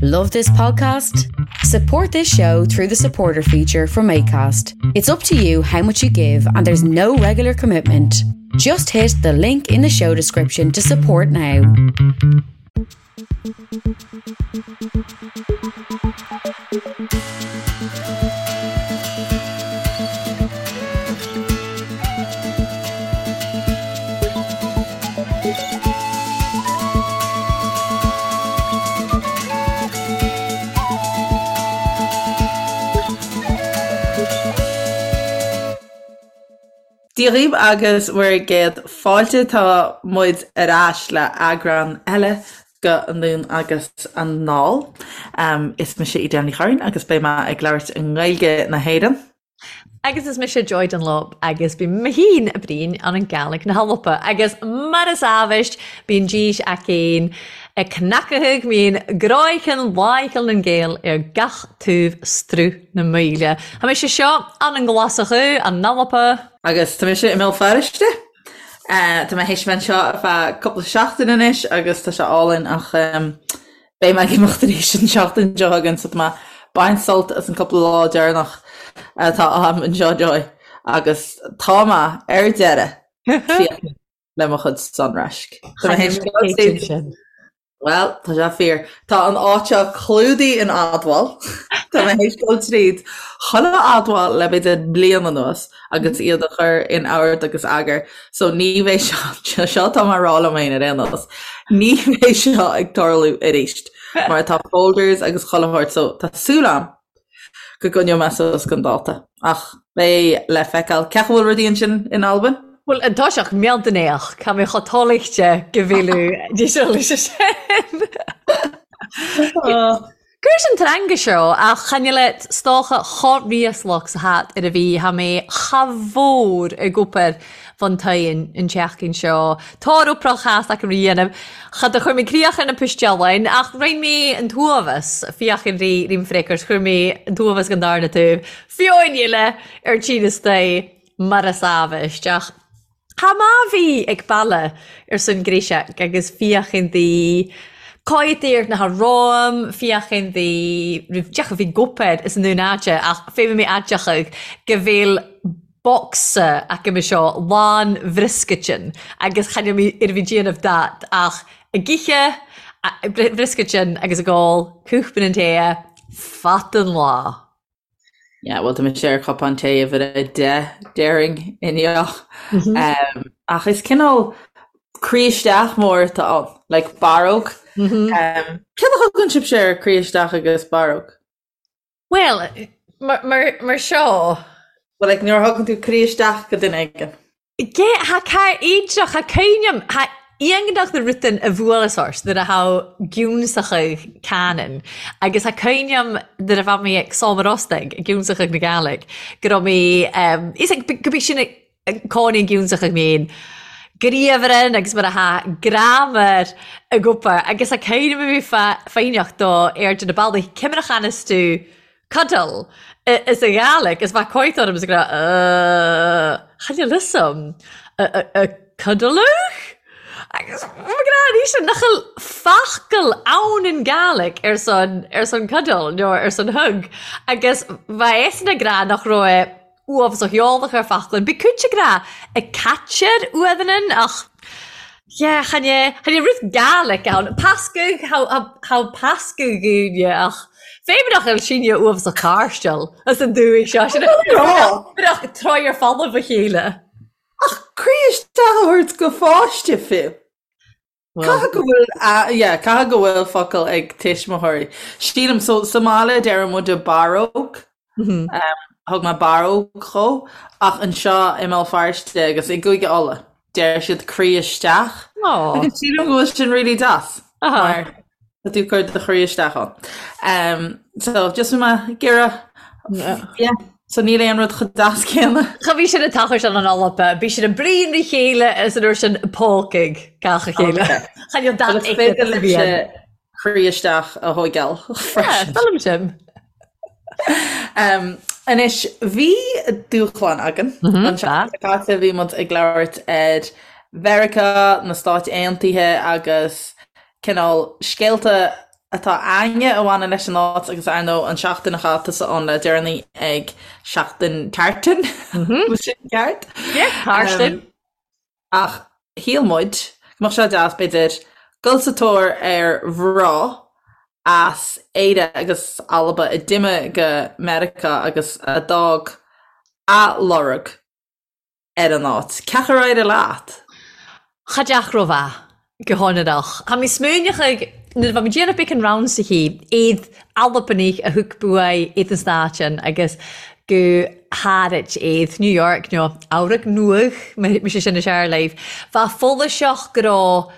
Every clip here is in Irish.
Love this podcast? Support this show through the supporter feature from ACAST. It's up to you how much you give, and there's no regular commitment. Just hit the link in the show description to support now. Dia dhaoibh agus bhur gcéad fáilte. Tá muid ar ais le eagrán eile de Anonn agus Anall. Is mise Edel Ní Churraoin agus beidh mé ag labhairt i nGaeilge na hÉireann. Agus is mise Joy Dunlop agus bím mé fhìn a' bruidhinn ann an Gàidhlig na h-Alba agus mar as àbhaist bíonn dís againn ag cnacadh mín gráicheann láicheall nan Gael ar gach taobh struth na maoile. Tha mise seo ann an Glaschu, an Alba. Agus tá mise i mBéal Feirste. Tá mé théis bheith anseo ar feadh cúpla seachtain anois agus tá sé álainn ach Beidh mé ag imeacht arís an tseachtain seo chugainn so tá mé ag baint sult as an cúpla lá deireanach atá agam anseo Joy agus tá mé ar deireadh críochnaithe le mo chuid sonraisc. Tá mé théis dul tríd. Bhuel, tá sé fíor. Tá an áit seo clúdaithe in admháil. Tá mé théis dul tríd chuile admháil le b'fhéidir bliain anuas agus iad a chur in ord agus eagar. So ní bheidh seo, seo atá mé a rá liom féin ar aon nós, ní bheidh seo ag tarlú arís mar tá folders agus chuile shórt so tá súil agam go gcoinneoidh mé suas don dáta. Ach beidh le feiceáil. Cén chaoi a bhfuil rudaí ansin in Albain? Bhuel, an toiseach mealltanéach, ca mbeadh chomh toilchte go bhfilleadh díseáil sin. Cuireas an teanga seo ach chan eil 's dòcha cho ríoslach 's a tha ar a bhí tha mé cha mhór ag obair bhun toighean an tseachtain seo. Tá oprach chas acu ri dhéanamh. Cha do chuir mé críoch ar na poistealain ach roinn mé an t-uaimheas, féach ar rí rím freagairt, chuir mé an t-uaimheas den darna taobh, fiúin eile ar tine istoigh mar is amhaist ach Tha math bhith ag baile ar son gréiseach agus féachain di cáidh na romham, féachain di roimh deoch a bhí gopair is an dún aide ach féadfaidh mé adeochadh go bhfuil bocsa acu me seo lán bhrioscaitin agus chan eil mé ar bhí déanamh dat ach ag ithe bhrioscaitin agus ag ól cúpla an tae fad an lá. Yeah, well tá mise ar chupán tae uimhir 10 déarfainn inniu. Um, ach is cineál croí isteach mór atá ann, like barróg. Um, céard a thugann sibhse ar croí isteach agus barróg? Well, mar, mar, mar seo. Well, like, nuair a thugann tú croí isteach go duine éigin. Ge, tha car éideach, tha cuimhneam, tha iongnach na rutan a bhuaileas ort nuair a tha giúnsachadh Canon agus tha cuimhneam nuair a bha mé ag Sòm a' Ostaig, ag giúnsachadh na Gàidhlig, go raibh mé, is ag, go b'é sin ag cónaí an giúnsachadh méin, griabhran agus mar a tha graiméar ag obair agus tha cuimhneam a bhí foighneach do airde na ballaí, cimearach anas tú Cuddle is a Ghàidhlig is bheadh coit orm is ag rá uh chan eil fhios a'm a cuddleadh? Agus mo ghná arís nach bhfuil focal ann in Gàidhlig ar son ar son cuddle nó ar son hug agus bheadh eisean ag rá nach raibh uafásach eolach ar focal Bhí cuid ag rá ag caitear uamhan ach yeah chan é chan é rud Gàidhlig ann. Pascadh tha tha pascadh dhúinne ach féin nach bhfuil sinne uafásach cairsteal as an dúigh seo sin nach troigh ar folamh a chéile. Ach croí isteach a thabhairt go pháiste fiú. Caithfidh go bhfuil, yeah, caithfidh go bhfuil focal ag tuismitheoirí. Sílim, so sa mbaile deireann muide barróg, thug mé barróg dhó, ach anseo i mBéal Feirste agus i gCúige Uladh, deir siad croí isteach. Agus sílim go bhfuil sin really deas. Mar tá tú ag cur do chroí isteach ann. So just bhí mé ag iarraidh, yeah. So níl aon rud chomh deas céanna. Cha bhí sin ag tochailt an Alba, bhí sin ag bruíon a chéile is an uair sin pócaigh gach a chéile. Chan eil dat Is féidir libhse croí isteach a thóigeáil freisin. Feilm sin. Anois, bhí dúshlán againn. An tseachtain seo caite bhí muid ag labhairt ar Mheiriceá, na Stáit Aontaithe agus cineál scéalta. atá a'inne a bhaineann leis an áit agus ar ndóigh an seachtain a chaith tusa ann le deireanaí ag Seachtain Tartan, bhfuil sin ceart? Yeah, Tartan. Ach shíl muid go mbeadh sé deas, b'fhéidir, dul sa tóir ar mhná as Éire agus Alba a d'imigh go Meiriceá agus a d'fhág a lorg ar an áit. Cén chaoi ar éirigh leat? Cha deach ro-mhath, gu hònraireach. Tha mi smaoineachadh, nuair a bha mi dèanamh beagan raunsachaidh, ead Albanaich a thug buadh ead an Stàitean agus gu hàraid ead New York no Eabhrac Nuadh, mise sin is fhearr leibh. Bha follaseach go robh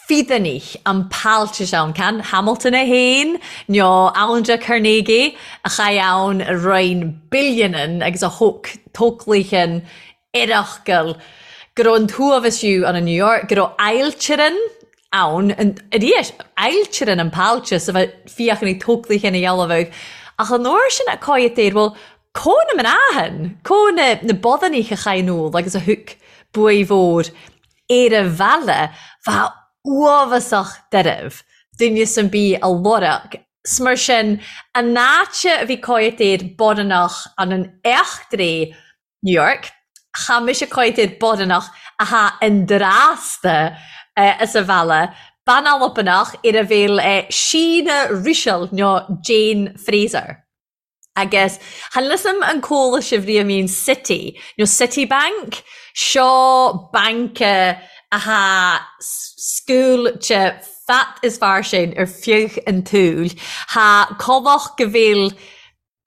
feadanaich an pàiltis ann, can Hamilton e fhèin, no Andra Carnegie a chaidh ann a roinn billionan agus a thóc tóclaichan oireachgail, go robh an t-uabhas fiù ann in New York, go robh ailtirean ann, aries, ailtirean an pàiltis a bha fiachanaidh tóclaichan a dhealbhadh, ach an uair sin a còidhead air, bhuel, co na mná than, co na na bodanaich a chaidh anall agus a thug buadh mhòr ar a bheile, bha uabhasach doirbh duine am bith a lorg 's mar sin an áit a bhí còidhead air boddanach ann an eachtraidh New York, cha mise còidhead air boddanach a tha an dràsta as a bheile, bean Albanach ar a bheil Sheena Ruiseal nó Jane Fraser. Agus chan eil fhios a'm an cuala sibh riamh mìon Citi, nó Citibank, seo banca atha sgàilte fad is fairsing ar feadh an tsaoil. Tha còmhla go bhfuil,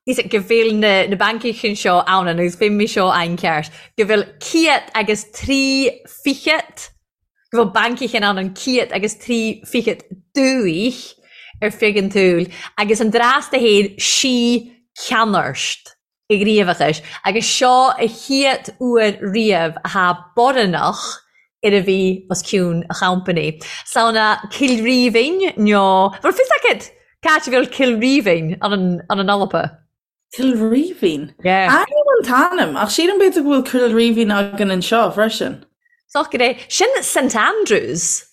go bhfuil na na bancaichan seo ann, agus bheidh mé seo an-cheart, go bhfuil ciad agus tri fichead go bhfuil bancaichan ann an ciad agus tri fichead dùthaich ar feadh an tsaoil, agus an dràsta fhèin sí ceannairst a ghníomhachais, agus seo a chiad uair riamh a tha boddanach ar a bhith os cionn a champanaí. Samhna Cill Rímhinn nó, bhfuil fios agat cà áit a bheil Cill Rímhinn ann an Alba? Cill Rímhinn? Yeah. Aithním an t-ainm, ach sílim b'fhéidir go bhfuil Cill Rímhinn againn anseo freisin. Socair é. Sin St Andrews.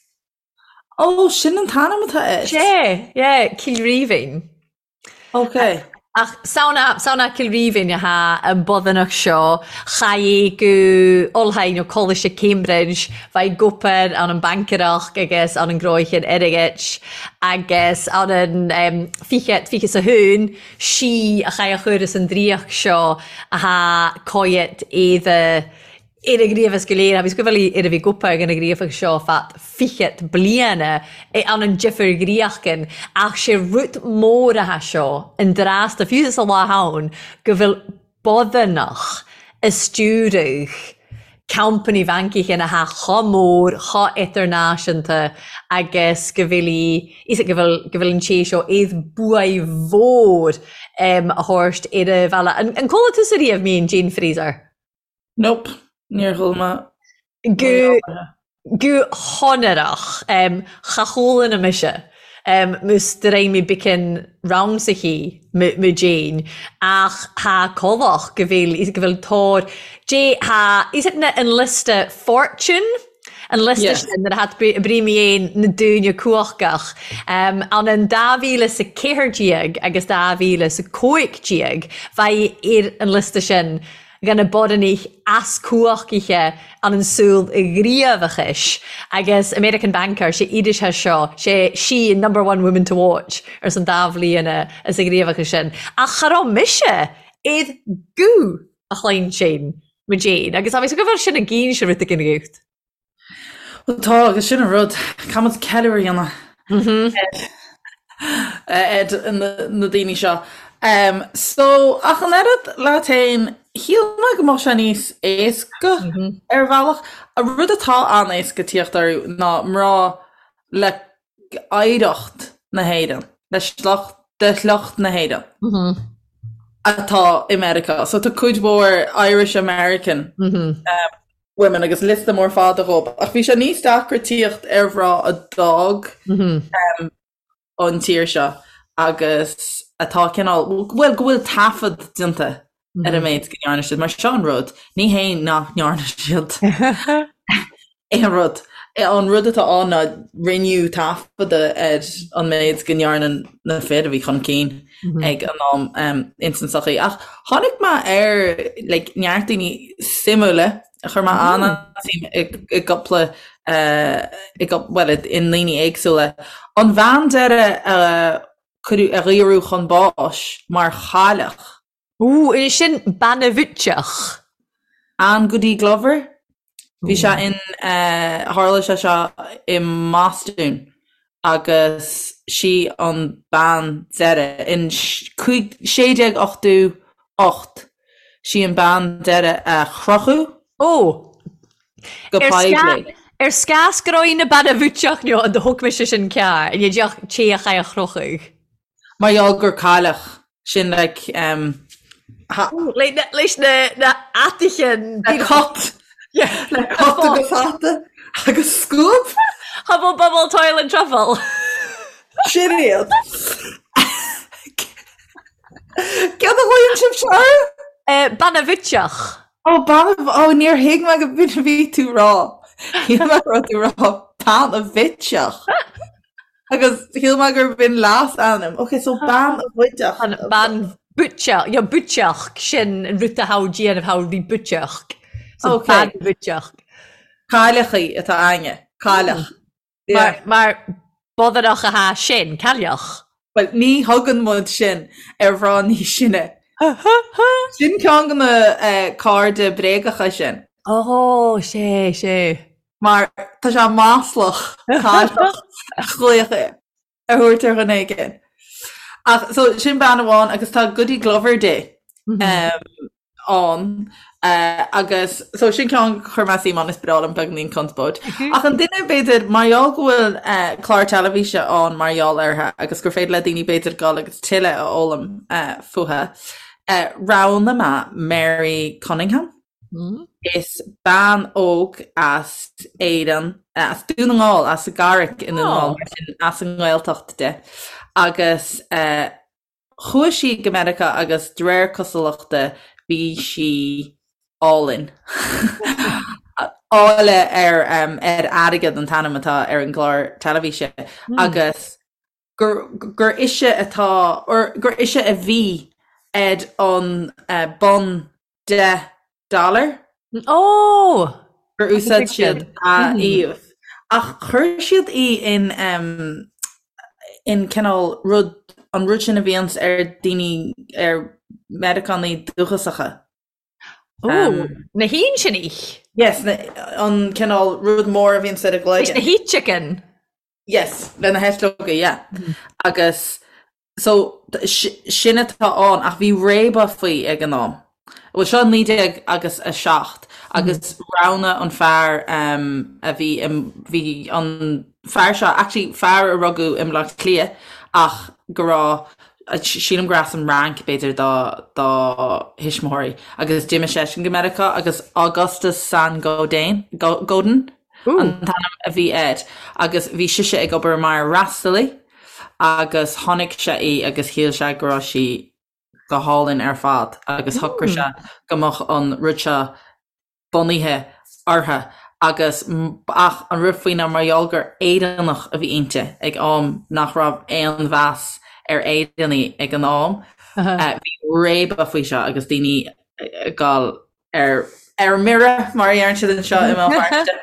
Ó, sin an t-ainm atá air. Yeah, yeah, Cill Rímhinn. Ok. Ach samhna, samhna Cill Rímhinn atá an boddanach seo, chaidh go Ollscoil nó Coláiste Cambridge, bha i gobair ann an bhancairreachd agus ann an gnòthachain airgid agus ann an fichead, fiche 's a haon, sí a chaith a chur as an draíocht seo athá cóidhead éada ar a ghníomhas go léir agus go bhfuil ar a bhí gopa ag an ghníomhach seo fad fichead bliana i ann an difir ghríochgan ach sé rud mór athá seo an drásta fiú sa lá ann go bhfuil boddanach a stiúradh company bhancaichin athá cho mór, cho idirnáisiúnta agus go bhfuil í, is go bhfuil, go bhfuil an té seo iad buaidh mhór a thabhairt ar a bhealach. An, an cuala tusa riamh mìon Jane Fraser? Nope, níor chuala mé. Gu, Gu hònraireach. Cha chualann mise mus do rinn mi beagan raunsachaidh mu Jane ach tha còmhla go bhfuil go bhfuil tóir J tha is it na an liosta Fortune an liosta sin nuair a tha brí mi fhèin na dùine cumhachtach ann an 2014 agus 2015 bha i ar an liosta sin dhan na bodhrannaich as cumhachtaithe ann an saol ghníomhachais agus American Banker, sé iris tha seo, sé sí an number one woman to watch ars an dá bhliana as a ghníomhachas sin. Ach cha raibh mise id guth a chluinsinn mo Jane agus tá mé go bhfuil sin i gcinn se rud éigin agat. Bhuel tá, agus sin an rud, caithfidh muid ceiliúradh a dhéanamh ar na daoine seo. So, ach an oiread leat féin, shíl mé go mbeadh sé níos éasca ar bhealach. An rud atá an-éasca tíocht orthu ná mná le oidhreacht na hÉireann, le sliocht, de shliocht na hÉireann atá i Meiriceá. So tá cuid mhór Irish American women agus liosta mór fada dhób. Ach bhí sé níos deacra tíocht ar mhná a d'fhág an tír seo agus atá cineál, bhuel, go bhfuil taifead déanta ar an méid go ndearna siad, mar seo an rud, ní hé nach ndearna siad aon rud. An rud atá ann ná rinneadh taifeadadh ar an méid go ndearna na fir a bhí chun cinn ag an am ins an tsochaí. Ach tháinig mé ar like neart daoine suimiúla a chuir mé an-suim i gcúpla i bhuel i ndaoine éagsúla. An bhean deireadh a cuireadh a dhaoradh chun báis mar chailleach. Ooh, is sin Bean a' Bhuiteach. Anne Goody Glover. Bhí sé in, tharla sé seo i mBostún agus sí an bean deireadh in 1688, sí an bean deireadh a crochadh Ó! go poiblí. Ar scás go raibh na Bean a' Bhuiteach nó an do thug mise sin cearr, i ndiaidh téach é a chrochadh. Mar gheall gur cailleach, sin like um, ha. Leis na na ataichin. Le cut. Yeah. Le cut agus hata agus scuab. Hubble bubble toil and truffle. Sin iad. Céard a ghlaonn sibhse orthu? Eh, Bean a' Bhuiteach. Ó, bean a, ó, níor thuig mé go b'in a bhí tú rá. Shíl mé go raibh tú rá bean a bhitseach. Agus shíl mé gur b'in leasainm. Ok, so bean a bhuideach. An bean bhuiteach, yeah, buiteach, sin an rud a tha déanamh tha ri buiteach. So Ok. bean bhuiteach. Cailleachaí atá againne. Cailleach. Mar, mar bodhrach a tha sin, cailleach. Bhuel, ní thugann muid sin ar mhná níos sine. Sin ceann de na cairde bréagacha sin. Ó, sé, sé. Mar tá sé maslach cailleach a ghlaoch a thabhairt ar dhuine éigin. Ach so sin bean amháin agus tá Goody Glover Day ann agus so sin ceann a chuir mé suim ann is breá liom beagáinín conspóid. Ach an duine b'fhéidir mar gheall go bhfuil clár teilifíse ann mar gheall uirthi agus gur féidir le daoine b'fhéidir dul agus tuilleadh a fhoghlaim fúithi, roghnaigh mé Mary Cunningham. Is bean óg as Éirinn, as Dún na nGall, as an gCarraig i nDún na nGall, mar sin as an nGaeltacht di. Agus chuaigh sí go Meiriceá agus de réir cosúlachta bhí sí álainn. Áille ar ar Airgead an t-ainm atá ar an gclár teilifíse agus gur gur ise atá, or gur ise a bhí ar an bonn $10. Ó! Gur úsáid siad a íomh. Ach chuir siad í in in cineál rud, an rud sin a bhíonns ar daoine, ar Meiriceánaigh dúchasacha. Ó, na hÍnseanaich? Yes, an cineál rud mór a bhíonns ar a gcloigeann. Na hEiteachain? Yes, le na heitleoga, yeah. Agus so sin atá ann ach bhí réabadh faoi ag an am. Bhuel seo 19 agus 7 agus roghnaigh an fear a bhí bhí an fear seo actually fear a rugadh i mBaile Átha Cliath ach go raibh sílim gur as an Fhrainc b'fhéidir dá dá thuismitheoirí agus d'imigh seisean go Meiriceá agus Augustus Saint-Gaudin Godin an t-ainm a bhí air agus bhí sise ag obair mar fhreastalaí agus chonaic sé í agus shíl sé go raibh sí go hálainn ar fad agus shocraigh sé go mbeadh an rud seo bunaithe uirthi agus ach an rud faoi ná mar gheall gur Éireannach a bhí inti ag am nach raibh aon mheas ar Éireannaigh ag an am bhí réabadh faoi seo agus daoine ag dul ar ar mire, mar a deireann siad anseo i mBéal Feirste.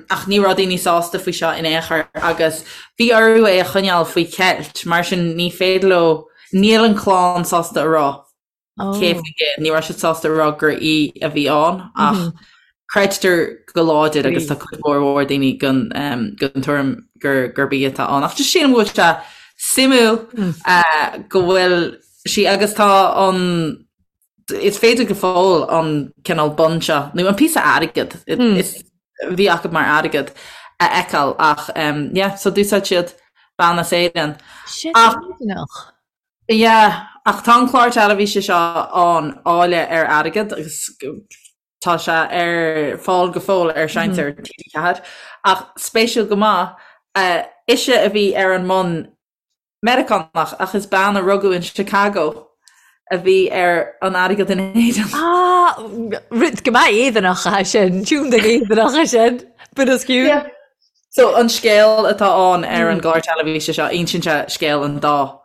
Ach ní raibh daoine sásta faoi seo in aon chor agus bhí orthu é a choinneáil faoi cheilt, mar sin ní féidir leo, níl an clann sásta a rá cé faoin gcéad, ní raibh siad sásta a rá gur í a bhí ann ach creidtear go láidir agus tá cuid mhór mhór daoine den den tuairim gur gurb í atá ann. Ach just sílim go bhfuil sé suimiúil go bhfuil sí agus tá an Is féidir go fóill an cineál bonn seo, nó an píosa airgid, is bhí acu mar airgead, a fheiceáil ach yeah, so d'úsáid siad bean as Éirinn. Sin Éireannach. Yeah, ach tá an clár teilifíse seo ann, Áille ar Airgead, agus tá sé ar fáil go fóill ar Seinnteoir TG4. Ach spéisiúil go maith, ise a bhí ar an mbonn Meiriceánach, ach is bean a rugadh in Chicago a bhí ar an airgead in Éirinn. Ah, rud go maith Éireannach é sin, tiúndaigh Éireannach é sin, bit askew. Yeah. So an scéal atá ann ar an gclár teilifíse seo, insíonn sé scéal an dá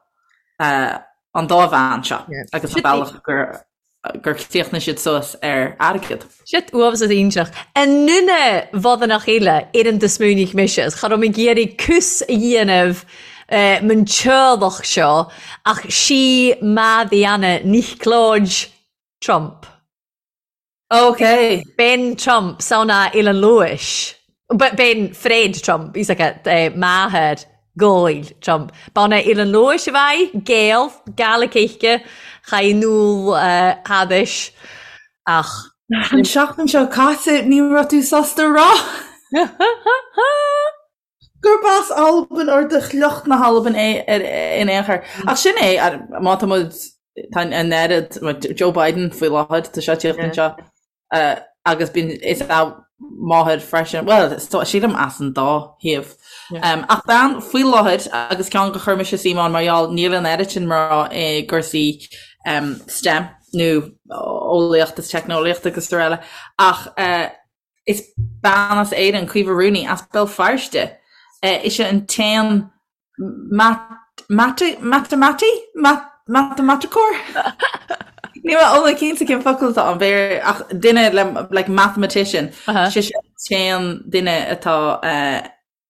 an dá bhean seo agus an bealach gur gur chríochnaigh siad suas ar airgead. Shit uafásach iontach. An duine bhodánach eile ar an do smaoinigh mise is cha raibh mé ag iarraidh cús a dhéanamh man teaghlach seo ach sí Madiana Niocláid Trump. Ok. Bean Trump, sauna Eilean Lewis. Bean Fred Trump, he's like a máthair Ghoill Trump. B'ann Eilean Lewis a bheidh, Gael, Gaelic chaith Noel Hadis ach. An seachtain seo caite ní raibh tú sásta a rá gurb as Albain or de shliocht na hAlban é in aon chor. Ach sin é, má tá muid, tá an oiread, Joe Biden faoi láthair, tá sé ag tíocht anseo agus bíonn, is a máthair freisin, bhuel, sílim as an dá thaobh. Ach bean faoi láthair agus ceann gur chuir mise suim ann mar gheall níl an oiread sin mná i gcúrsaí STEM nó eolaíocht is teicneolaíocht agus araile ach Is bean as Éirinn, Caoimhe Rooney, as Béal Feirste. Ise an t-aon matamaiticeoir? Matamaiticeoir? Níl mé iomlán cinnte cén focal atá ann, b'fhéidir, ach duine le, like mathematician. Sise an t-aon duine atá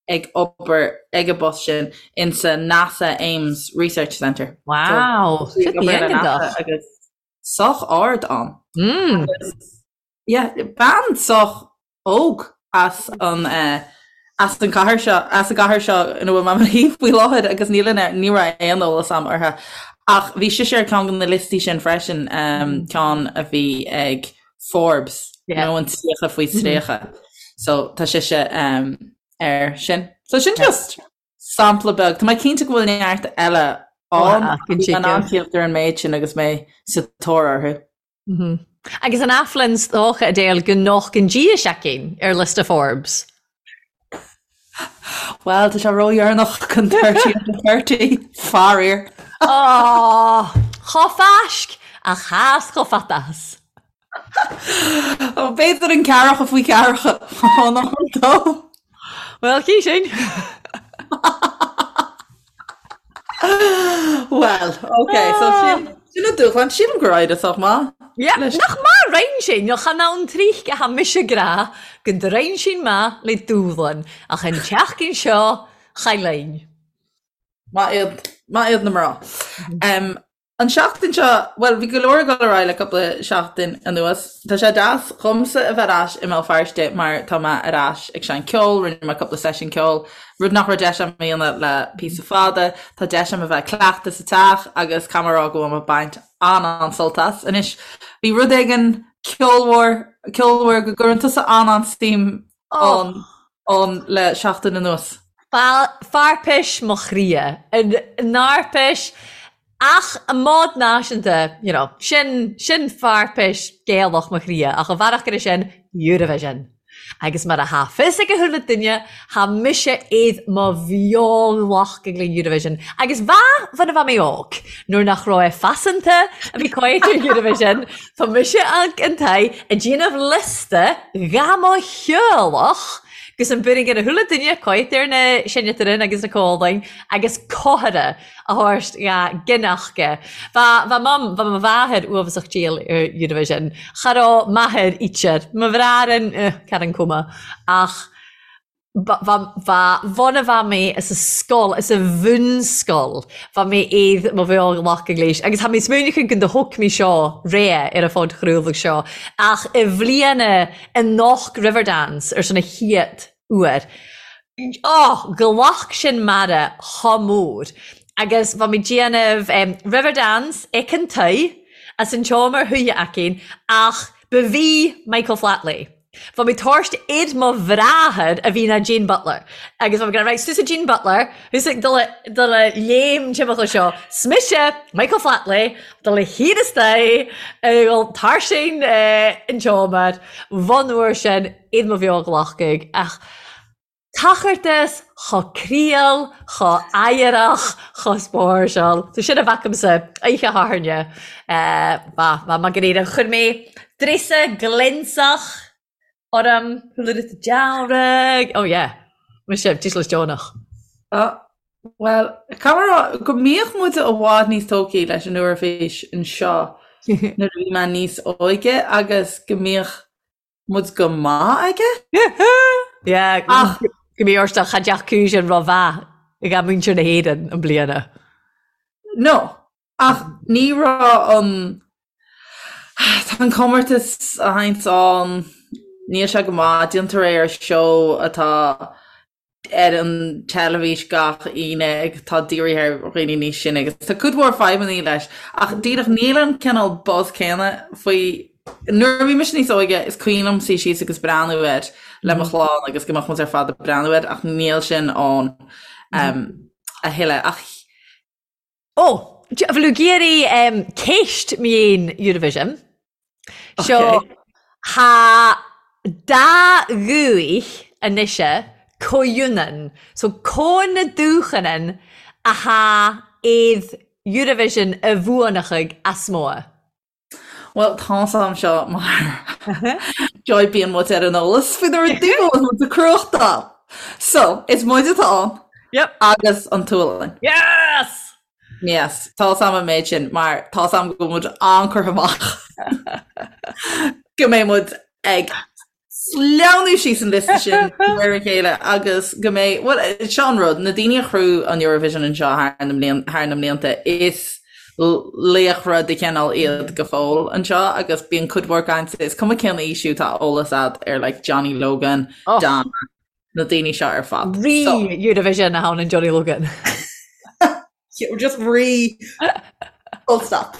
ag obair ag an bpost sin insa NASA Ames Research Centre. Wow! So, ag obair le NASA agus sách ard ann. Agus Yeah, bean sách óg as an as an cathair seo, as an gcathair seo ina bhfuil mé i mo shuí faoi láthair agus níl an ní raibh aon eolas a'm uirthi. Ach bhí sise ar ceann de na liostaí sin freisin, ceann a bhí ag Forbes, nó an 30 faoi 30. So tá sise air sin. So sin just sampla beag. Tá mé cinnte go bhfuil neart eile ann. Bhí mé in ann tíocht ar an méid sin agus mé sa tóir orthu. Agus an Aflin 's dócha Adele go nochtann Dia seicean ar liosta Forbes. Bhuel, tá sé ródheireanach chun 30 under 30, faraor. Á, chomh fáisc ach chas chomh fatas. Ó, b'fhéidir an ceathracha faoi cheathracha an ann dó. Bhuel, cí sin. Well, ok, so sin sin an dúshlán, sílim gur éirigh sách maith. Yeah, nach maith roinn sin, nó chan ann tríth a tha mise ag rá go ndroinn sin maith le dúshlán, ach an tseachtain seo, cha linn. Maith iad, maith iad na mná. Um, An seachtain seo, bhuel, bhí go leor ag dul ar aghaidh le cúpla seachtain anuas. Tá sé deas dhomsa a bheith ar ais i mBéal Feirste mar tá mé ar ais ag seinnt ceoil, rinne mé cúpla seisiún ceoil, rud nach raibh deis agam a dhéanamh le píosa fada. Tá deis agam a bheith ag cleachtadh sa teach agus caithfidh mé a rá go bhfuil mé ag baint an-an-sult as. Anois, bhí rud éigin ceolmhar, ceolmhar go gcuireann tusa an-an-suim ann ann le seachtain anuas. Fairpis mo chroidhe, an fhairpis ach an mód náisiúnta, you know, sin, sin fairpis Gaelach mo chroidhe, ach an bhearach go sin, Eurovision. Agus mar a tha fios ag a chuile duine, tha mise id mo bheolach ag le Eurovision. Agus bha, bha na bha mé óg, nuair nach raibh e faiseanta a bhí coit ar Eurovision, Tá mise ag an tae ag déanamh liosta dha mo theaghlach gus an b'in ag a chuile duine coit ar na seinneatarin agus na cólainn agus cothaire a thabhairt dha gineachga. Bha bha mam bha mo mháthair uafasach diail ar Eurovision. Cha raibh m'athair ítear. Mo bhráthairin eh cad an cuma ach Bha bhun a bha mé sa scoil, sa bhunscoil, bha mé id mo bheolach ag léis. Agus tha mé smaoineachadh go do thug mé seo ré ar a phodchraoladh seo, ach i bhliana i nDoc Riverdance ar son a chéad uair. Oh, ghlac sin m'aire chomh mór. Agus bha mé déanamh Riverdance ag an toigh, as an tseomra shuighe againn, ach ba bhí Michael Flatley. Bha mi tabhairt id mo bhráthair a bhí ná Jean Butler agus bha mi ag rá right 's tusa Jean Butler thusa ag dul a dul a léim timpeall seo 's mise Michael Flatley dul a thiar istoigh ag dul tarsin an tseomra bhun uair sin id mo bheoghlachadh ach Tachartas chomh críol, chomh oighreach, chomh spáirseáil. So sin a bheadh agamsa oíche Shathairne. Ba, ba maith go léir. Chuir mé dréasa glionsach orm, chuala dearg. Oh yeah. Mise, dícheall deonach. Bhuel, caithfidh mé a rá go mbíodh muid i bhfad níos tógthaí leis an Eoraifís anseo nuair a bhí mé níos óige agus go mbíodh muid go maith aige. Yeah, ach go mbí ort cha dteach sin ró-mhaith ag muintir na hÉireann an bliana. No, ach ní raibh an tá an comórtas a théanns ann, níl sé go maith, déantar é ar seó atá ar an teilifís gach Aoine atá dírithe ar dhaoine níos sine agus tá cuid mhór fadhbanna leis ach díreach níl an cineál buzz céanna faoi. Nuair a bhí mise níos óige is cuimhin liom suí síos agus breathnú air le mo chlann agus go mbeadh muid ar fad ag breathnú air ach níl sin ann a thuilleadh ach Ó, bhfuil tú ag iarraidh ceist mhéin Eurovision? Seo, tha dà ghuth a-nise comhionann, so co na dùchanan a tha aird Eurovision a bhuanachaidh as mòr. Bhuel, tá's a'm seo mar joy bíonn muid ar an eolas faoi na rudaí go bhfuil muid ag cruachtáil. So, is muid atá ann Yep. agus an tSualainn. Yes! Yes, tá's a'm an méid sin mar tá's a'm go bhfuil muid an-curtha amach go mbeidh muid ag sleamhnú síos an liosta sin de réir a chéile agus go mbeidh, bhuel, seo an rud, na daoine a chruthaigh an Eurovision anseo thar na mblian, thar na mblianta, is laochra de chineál iad go fóill anseo agus bíonn cuid mhór cainte, is cuma cén aois thú, tá eolas a'd ar like Johnny Logan, Oh. Donna, na daoine seo ar fad. Rí So, Eurovision a tha ann Johnny Logan. Just rí full stop.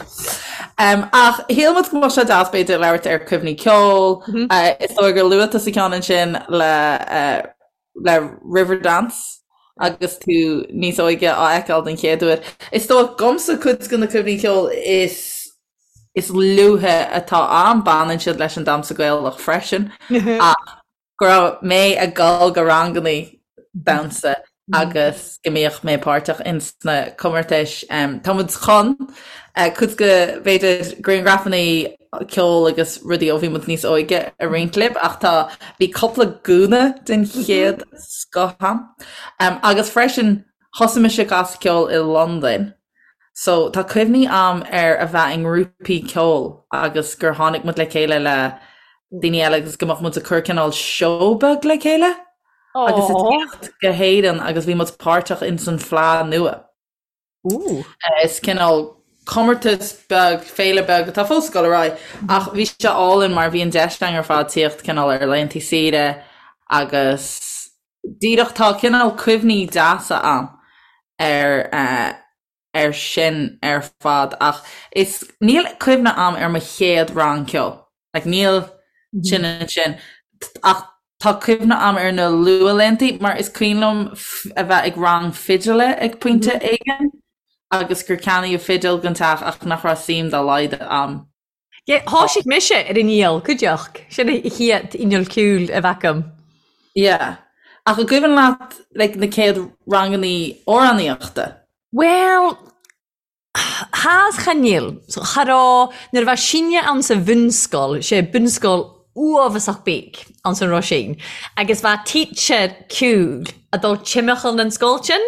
Um, ach shíl muid go mbeadh sé deas b'fhéidir labhairt ar cuimhní ceoil. Mm -hmm. uh, is dóigh gur luaigh tusa ceann ansin le, uh, le Riverdance agus tú níos óige á fheiceáil den chéad uair. Is dóigh dhomsa cuid de na cuimhní ceoil is is luaithe atá a'm baineann siad leis an damhsa Gaelach freisin ach go raibh mé ag dul go rangannaí damhsa agus go mbíodh mé páirteach ins na comórtais. Tá muid chun cuid de b'fhéidir grianghrafannaí ceoil agus rudaí ó bhí muid níos óige a roinnt libh ach tá bhí cúpla gúna den chéad scoth a'm. Agus freisin thosaigh mise ag casadh ceoil i Londain So tá cuimhní a'm ar a bheith i ngrúpaí ceoil agus gur tháinig muid le chéile le daoine eile agus go mbeadh muid ag cur cineál seó beag le chéile agus ag tíocht go hÉirinn agus bhí muid páirteach ins an Fleadh Nua. Ooh. Is cineál comórtas beag, féile beag atá fós ag dul ar aghaidh ach bhí sé álainn mar bhí an deis againn ar fad tíocht cineál ar laethanta saoire agus díreach tá cineál cuimhní deasa a'm ar ar sin ar fad ach is níl cuimhne a'm ar mo chéad rang ceoil like níl sin ansin ach tá cuimhne a'm ar na luathlaethanta mar is cuimhin liom a bheith ag rang fidile ag pointe éigin agus gur ceannaíodh fidil don teach ach nach raibh suim dá laghad a'm Yeah, thoisigh mise ar an fhidil, cuideachd. Sin a chéad inneall ceoil a bheith agam. Yeah. Ach an gcuimhin leat like na céad rangannaí amhránaíochta? Bhuel, tha 's chan eil. So, cha raibh, nuair a bha sinne ann sa bhunscoil, sé bunscoil uabhasach beag anns an Roisín, agus bha teacher ceoil a' dul timcheall nan sgoil sin,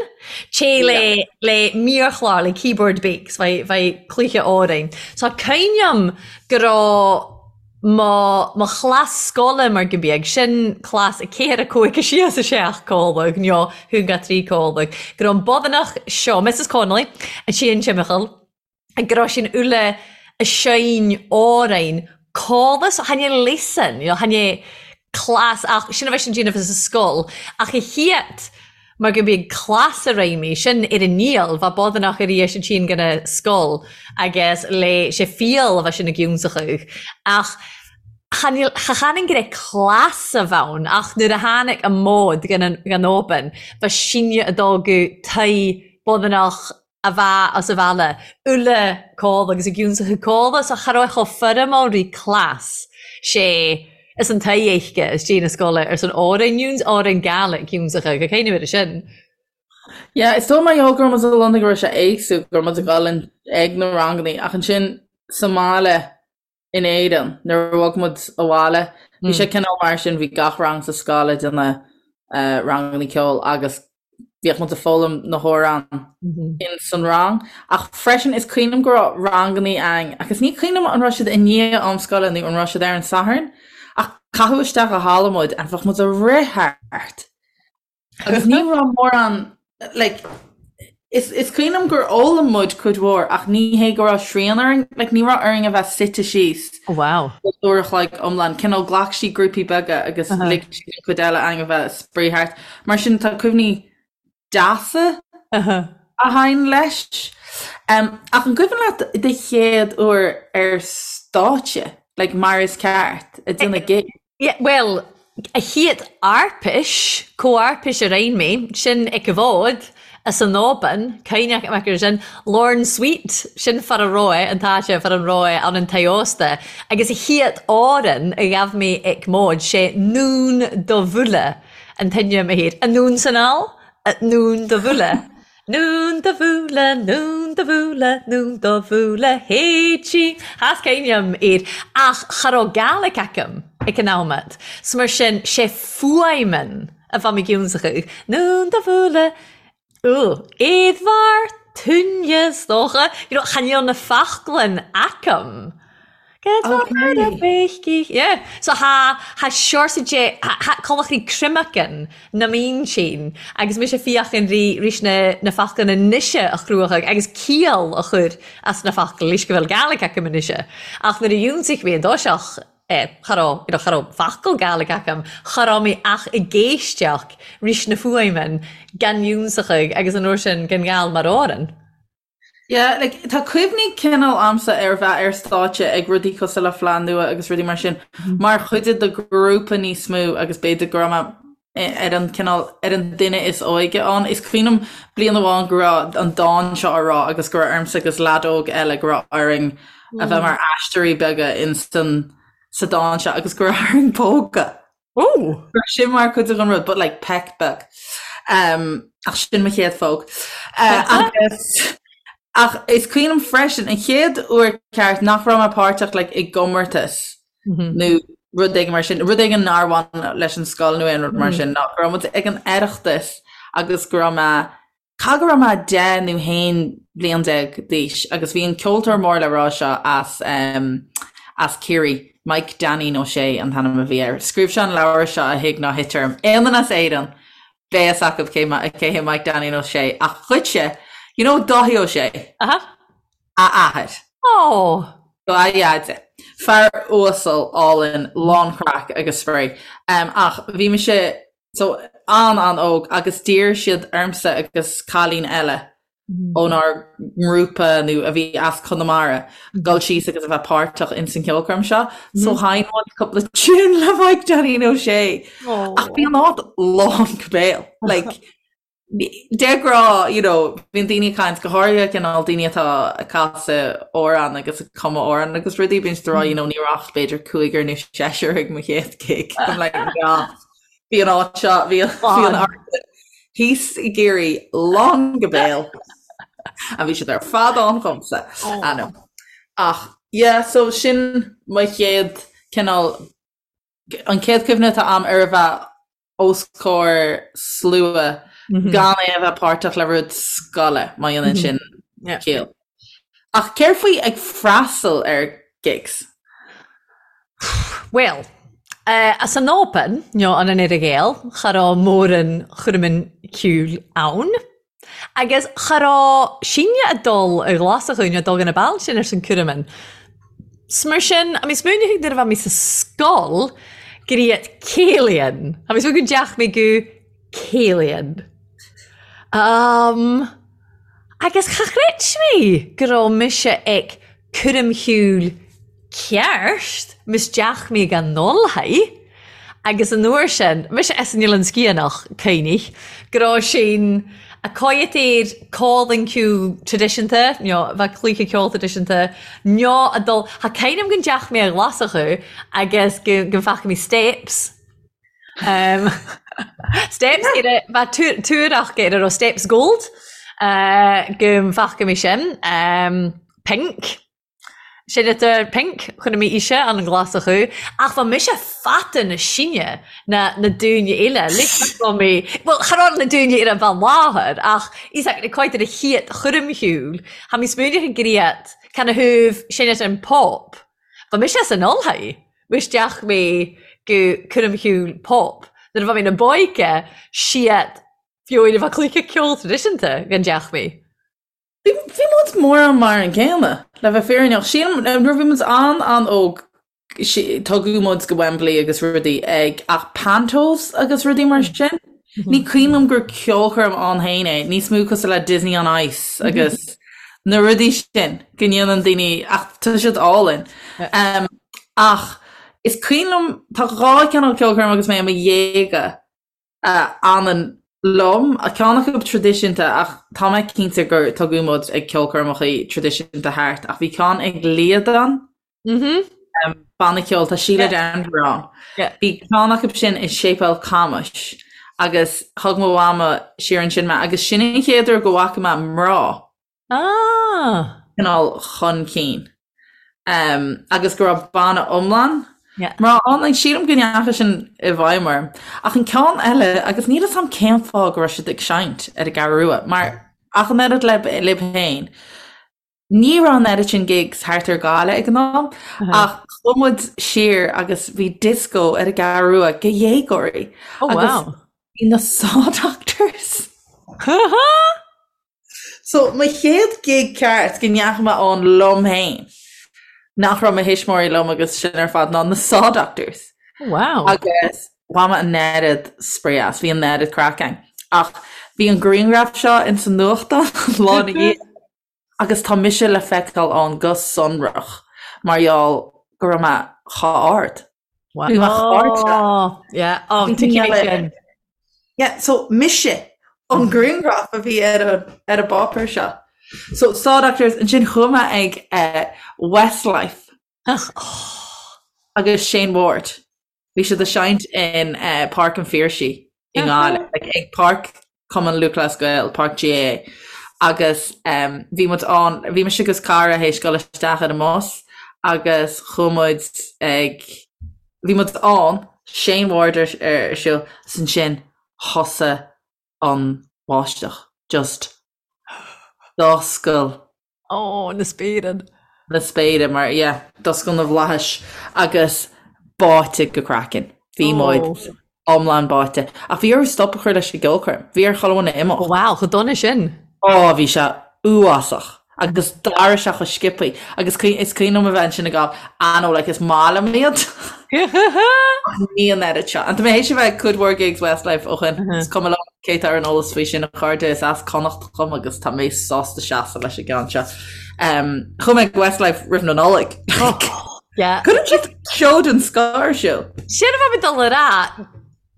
té le le mírchlár, le keyboard beag, 's bha bha cluiche òrainn. So cuimhneam go raibh mo mo chlas sgoile mar gun beag, sin clas a ceathair a cúig a sé 's a seacht còmhladh, nó a haon ga trí còmhladh, go raibh an bodhanach seo, Mrs Connolly, a théann timcheall, go raibh sin uile a seinn òrainn còmhla so chan e lesson you know chan e clas ach sin a bheith sin déanamh sa scoil ach a chéad mar go mbíodh clas a réimí sin ar an ndíol bheadh bodhanach ar dheis an tSín gona scoil agus le sé fial a bheith sin i gciúnsachadh ach chan cha chanann go raibh clas a bhonn ach nuair a tháinig an mód gan an gan obain bheadh síneadh a dtógadh toigh bodhanach a bheith as a bhaile, uile codladh agus a gciúnsachadh codladh so cha raibh chomh foirmiúil rí cleas sé is an t-éisce is dé na scoile ar son Árainn Iúns, Árainn Gaelic ciúnsachadh, go céin uair sin. Yeah, is dóigh mar gheall go raibh muid i Londain go raibh sé éagsúil, go raibh muid ag dul ag na rangannaí ach ansin sa mbaile in Éirinn nuair a bhog muid abhaile, bhí sé cineál mar sin, bhí gach rang sa scoil ag déanamh. ranganna ceoil agus bhíodh muid ag foghlaim na hamhráin in san rang. Ach freisin is cuimhin liom go raibh ranganna ann agus ní cuimhin liom an raibh siad i ndiaidh am scoile nó an raibh siad ar an Satharn ach caitheadh isteach i halla muid and bheadh muid ag rith thart agus ní raibh mórán like is is cuimhin liom gur fhoghlaim muid cuid mhór ach ní hé go raibh srian orainn, like ní raibh orainn a bheith suite síos Oh wow. uair a chloig iomlán. Cineál ghlac siad grúpaí beaga agus lig siad an chuid eile againn a bheith ag spraoi thart. Mar sin tá cuimhní deasa a thagann leis. Um, ach an cuimhin leat do chéad uair ar stáitse, like mar is ceart, ag déanamh gig? Yeah, bhuel, a chéad arpais, comharpais a rinn mé, sin ag an bhfód, as an Oban, cuimhneach amach ar sin, Lorne Sweet, sin fear a raibh, an t-áite, fear an raibh ann an tigh ósta, agus a chéad amhrán a ghabh mé ag móid, sé Nún do Bhuaile an t-ainm a théid, an Nún san Ál, Nún do Bhuaile. Nún do bhuaile, nún do bhuaile, nún do bhuaile, héití. Thas cuimhním air, ach cha raibh Gaelic agam ag an am at. So mar sin, sé fuaimeann a bheadh mé giúnsachadh. Nún do bhuaile, ú, éadmhar, túine, is dócha. You know, chan eil na fachglann agam. Okay. Yeah. So tha tha seorsa de tha collachraí cruimeacan na mín sin agus mise fiachan rí rís na na faclan anoise a chruachadh agus ciall a chur as na facla leis go bhfuil Gaelic agam anoise. Ach nuair a dh'ionsaigh mé an dtoiseach eh, cha raibh you know, cha raibh focal Gaelic agam, cha raibh mé ach ag éisteacht rís na fuaimeann gan ionsachadh agus an uair sin gan Gall mar amhrán. Yeah, like, tá cuimhní cineál a'msa ar bheith ar stáitse ag rudaí cosúil le Fleadh Nua agus rudaí mar sin, mar chuid de ghrúpa níos mó agus b'fhéidir go raibh mé ar an cineál, ar an duine is óige ann. Is cuimhin liom bliain amháin go raibh an dán seo á rá agus go raibh ormsa agus leaid óg eile go raibh orainn a bheith mar aisteoirí beaga in san, sa dán seo agus go raibh orainn pógadh. Ó! Sin mar chuid den rud, but like peck beag. Um, ach sin mo chéad phóg. Uh, agus ach is cuimhin liom freisin an chéad uair ceart nach raibh mé páirteach like, i gcomórtas mm -hmm. nó rud éigin mar sin, rud éigin nár bhain leis an scoil nó aon rud mar mm -hmm. sin, ná go raibh muid ag an Oireachtas agus go raibh mé Caithfidh go raibh mé 10 nó 11 bliain d'aois agus bhí an ceoltóir mór le rá seo as as Ciarraí, Mike Dainín Ó Sé an t-ainm a bhí air. Scríobh sé an leabhar seo a Thig Ná Thit Orm. Aon duine as Éirinn, beidh fhios acu cé cé hé Mike Dainín Ó Sé ach dhuitse, you know Dáithí Ó Sé? Aha. A athair. Oh! A dheaide. Fear uasal, álainn, lán craic agus spraoi. Ach bhí mise So, an-an-óg agus d'iarr siad ormsa agus cailín eile ónár ngrúpa nó a bhí as Conamara dul síos agus a bheith páirteach ins an cheolchoirm seo. So sheinn muid cúpla tune le Mike Dainín Ó Sé. Ach bhí an áit lán go béal. Like, de ghnáth, you know, bíonn daoine ag caint, go háirithe cineál daoine atá ag casadh amhrán agus ag cumadh amhrán agus rudaí, bíonn siad ag rá, you know, ní raibh ach b'fhéidir cúigear nó seisear ag mo chéad gig. I'm like, yeah. Bhí an áit seo, bhí an áit thíos i gCiarraí lán go béal. A bhí siad ar fad ann dhomsa. I know. Ach, yeah, so sin mo chéad cineál, an chéad chuimhne atá a'm ar a bheith os comhair slua gan é a bheith páirteach le rud scoile, má dhéanann sin ciall. Ach céard faoi ag freastal ar gigs? Bhuel, as an Albain, nó an an Earra-Ghael, cha raibh mórán chúraimí ceoil ann. Agus cha raibh sinne ag dul ar Ghlasachú nó dul go na bailte sin ar son cúraimí. 'S mar sin, I mean, smaoinigh nuair a bheidh mé sa scoil gur iad céilíonn. I mean, go dteach mé go céilíonn. Um, agus cha chreid mé go raibh mise ag cúram shiúil ceart, ms deach mé gan dul haghaidh. Agus an uair sin, mise as an Oileán Sciathanach, cuimhnigh, go raibh sin a coiat air cólann ceoil traidisiúnta, nó bheadh cluiche ceoil traidisiúnta, nó a dul, tha cuimhne a'm gun dteach mé a Ghlasachú agus go go bhfaca mé Steps. Um, steps ar a bheadh tuarach ar a raibh Steps Gold, uh, go bhfaca mé sin. Um, Pink. Seinntear Pink, chonaic mé ise an Ghlaschú, ach bha mise fata na sine ná na daoine eile. Like bha mé, bhuel, cha raibh na daoine eile bheith láthair, ach is ea, quite ar a chéad choirm shiúil, tha mi smaoineach ag griat canathaobh seinntear an pop. Bha mise san ollthaigh, isteach mé go coirm shiúil pop. Nuair a bha mé na b'óige, siad fiú a bheith cluiche ceol traidisiúnta gan deach mé. Bhí muid mórán mar an gcéanna, le bheith fírinneach. Sílim, nuair a bhí muid an-an-óg, tugadh muid go Wembley agus rudaí ag, ach pantos agus rudaí mar sin, ní cuimhin liom gur ceolchoirm ann féin é, níos mó cosúil le Disney on Ice agus na rudaí sin go ndéanann daoine, ach tá siad álainn. Ach is cuimhin liom, tá dhá chineál ceolchoirm agus mé i mo dhéaga, a fhanann liom, ceann acu traidisiúnta ach tá mé cinnte gur tugadh muid ag ceolchoirmeacha traidisiúnta thart ach bhí ceann ag Líadan, banna ceoil, tá Síle Denvir ann. Bhí ceann acu sin i Séipéal Camuis agus thug mo mhama siar ansin mé agus sin an chéad uair go bhfaca mé mná. Ah! cineál chun cinn. Agus go raibh banna iomlán mná ann. Like, sílim go ndeachaigh sin i bhfeidhm orm. Ach an ceann eile, agus níl 'fhios a'm cén fáth go raibh siad ag seinnt ar an gCeathrú Rua, mar ach an oiread libh féin, ní raibh an oiread sin gigs thart ar Ghaillimh ag an am, ach chuaigh muid siar agus bhí disco ar an gCeathrú Rua do dhéagóirí. Oh wow. Agus bhí na Saw Doctors. So, mo chéad gig ceart go ndeachaigh mé ann liom féin, nach raibh mo thuismitheoirí liom agus sin ar fad, ná na Saw Doctors. Wow. Agus bhain mé an oiread spraoi as, bhí an oiread craic ann. Ach bhí an grianghraf seo ins an nuachtán lá ina dhiaidh agus tá mise le feiceáil ann go sonrach mar gheall go raibh mé chomh ard. Bhí mé chomh ard seo. Oh, yeah. Oh, tuigim é sin. Yeah, so mise an grianghraf a bhí ar an ar an bpáipéar seo. So Saw Doctors, ansin chuaigh mé ag eh, Westlife agus Shane Ward. Bhí siad ag seinnt in eh, Páirc an Phiarsaigh i nGaillimh, like, ag Páirc Cumann Lúthchleas Gael, Páirc GAA, agus em, bhí muid ann, bhí mise agus cara théis dul isteach ar an mbus agus chuaigh muid ag, bhí muid ann, Shane Ward ar ar siúl, 's ansin thosaigh an bháisteach, just d'oscail Ó, na spéire. Na spéire, mar, yeah, d'oscail na bhflaithis agus báite go craiceann. Bhí muid iomlán báite. Ach bhí orthu stop a chur leis an gceolchoirm. Bhí ar chuile dhuine imeacht. Wow, chomh dona sin. Ó, bhí sé uafásach. Agus d'éirigh sé chomh sciobthaí. Agus is cuimhin liom a bheith ansin ag gabháil, I know, like, is maith liom iad. Ach ní an oiread seo. And tá mé théis a bheith ag cuid mhór gigs Westlife ó shin. Is cuma liom cé atá ar an eolas faoi sin, a chairde, is as Connacht dhom agus tá mé sásta seasamh leis an gceann seo. Chuaigh mé ag Westlife roimh na Nollag. Yeah. Cuireann siad seó den scoth ar siúl. Sin a bha mi dol a ràdh.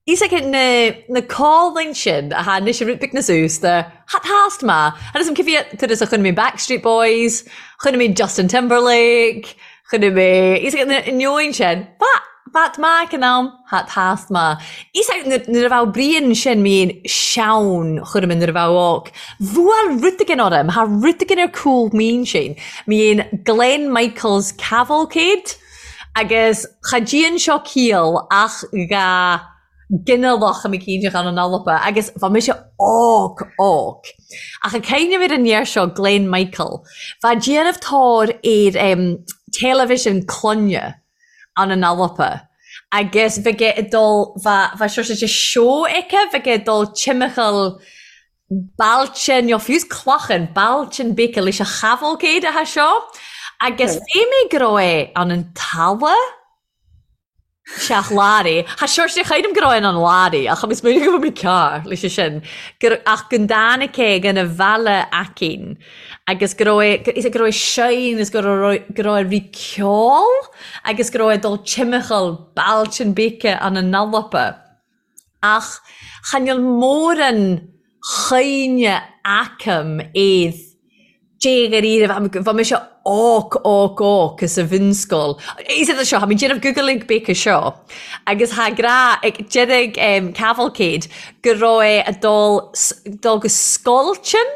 Is aici na na càlainn sin a tha anois a' rud beag nas aosda, tha tàst math. Agus an cibé turas a chonaic mé Backstreet Boys, chonaic mé Justin Timberlake, chonaic mé, is aici na neoin sin, bha, bha maith ag an am, tha tàst math. Is aici nuair nuair a bheadh Brian sin mín seann chuir mé nuair a bheadh óc. Bhuail rud éigin orm, tha rud éigin ar cúl m'intinn, mín Glen Michaels Cavalcade. Agus cha dtéann seo ciall ach dha ghinealach a m'eicínt ann an Alba agus bha mise óg, óg. Ach ag cuimhneamh ar an fhear seo, Glen Michael, bha déanamh tóir ar em television clainne ann an Alba agus bheadh ag dul, bha, bha sort of seó aici, bheadh ag dul timcheall bailte, nó fiú clachan, bailte beaga leis an chavalcade atá seo, agus bhí mé go raibh é ann an talamh seach Larry. Tha sort of chreidim go raibh é an Larry, ach is minic go bhfuil mé cearr leis sin, gur, ach go dtáinig é gona bhaile aicín agus go raibh é, is go raibh é seinn is go raibh, go raibh é rí ceol agus go raibh é ag dul timcheall bailte beaga ann an Alba. Ach chan eil mòran chuimhne agam air dé-dháiríre, bha mise óg, óg, óg sa bhunscoil. Is é seo, tha mi déanamh googling beaga seo, agus tha grá ag deireadh Cavalcade go raibh é a' dul, dul go Sgoiltin.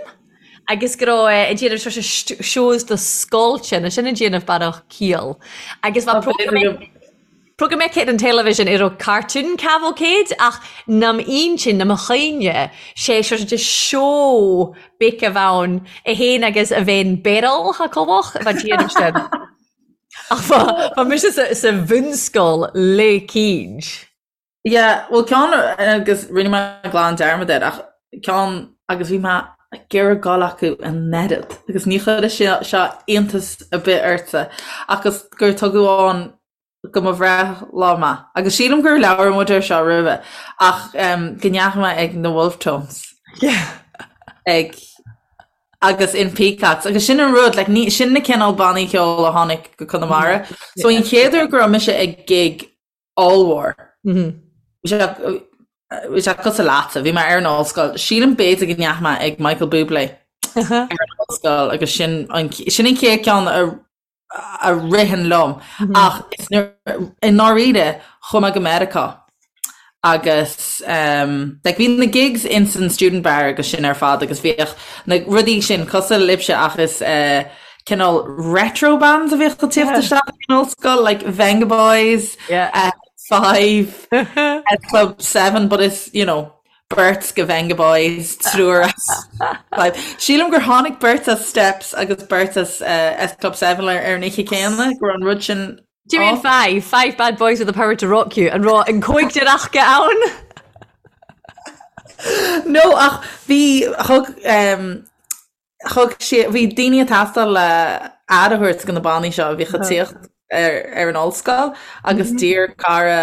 Agus go raibh ag déanamh sort shows do scoilte, nó sin ag déanamh bearach ciall. Agus bha programme aici ar an television a raibh cartoon cavalcade ach nam intinn, nam chuimhne, sé sort de seó beag a bh' ann é fhéin agus a bhean Beryl tha Cobhach a bha déanamh sin. Ach bha mise sa bhunscoil le cinnt. Yeah, bhuel ceann agus rinne mé glan dearmad air ach ceann agus bhí mé ag iarraidh dul acu an oiread agus ní chuirfidh sé seo iontas ar bith ortsa agus gur tugadh ann go mo bhreithlá mé agus sílim gur labhair muid air seo roimhe ach um, go ndeachaigh mé ag na Wolfe Tones. Yeah. ag agus in Peacocks agus sin an rud like, ní, sin na cineál bannaí ceoil a tháinig go Conamara. So an chéad uair go raibh mise ag gig ollmhór. Bhí sé cosúil leatsa, bhí mé ar an ollscoil. Sílim b'fhéidir go ndeachaigh mé ag Michael Bublé ar an ollscoil agus sin an sin an chéad ceann a a ritheann liom. Ach i ndáiríre chuaigh mé go Meiriceá agus um, like, bhí na gigs in san student bar agus sin ar fad agus bhíodh na rudaí sin cosúil libhse ach is uh, cineál retro bands a bhíodh ag tíocht isteach in ollscoil, like Vengaboys, Yeah. uh, Five, S Club 7, but it's, you know, beirt go Vengaboys, triúr as Five. Sílim gur tháinig beirt as Steps agus beirt as uh, S Club 7 ar ar an oíche céanna, go raibh an rud sin Do you mean off. five? Five bad boys with the power to rock you. An raibh an cóigdear aca ann? No, ach bhí thug um, Thug sé, bhí daoine ag teastáil le aire a thabhairt do na bannaí seo a bhíodh ag tíocht ar ar an ollscoil agus d'iarr cara,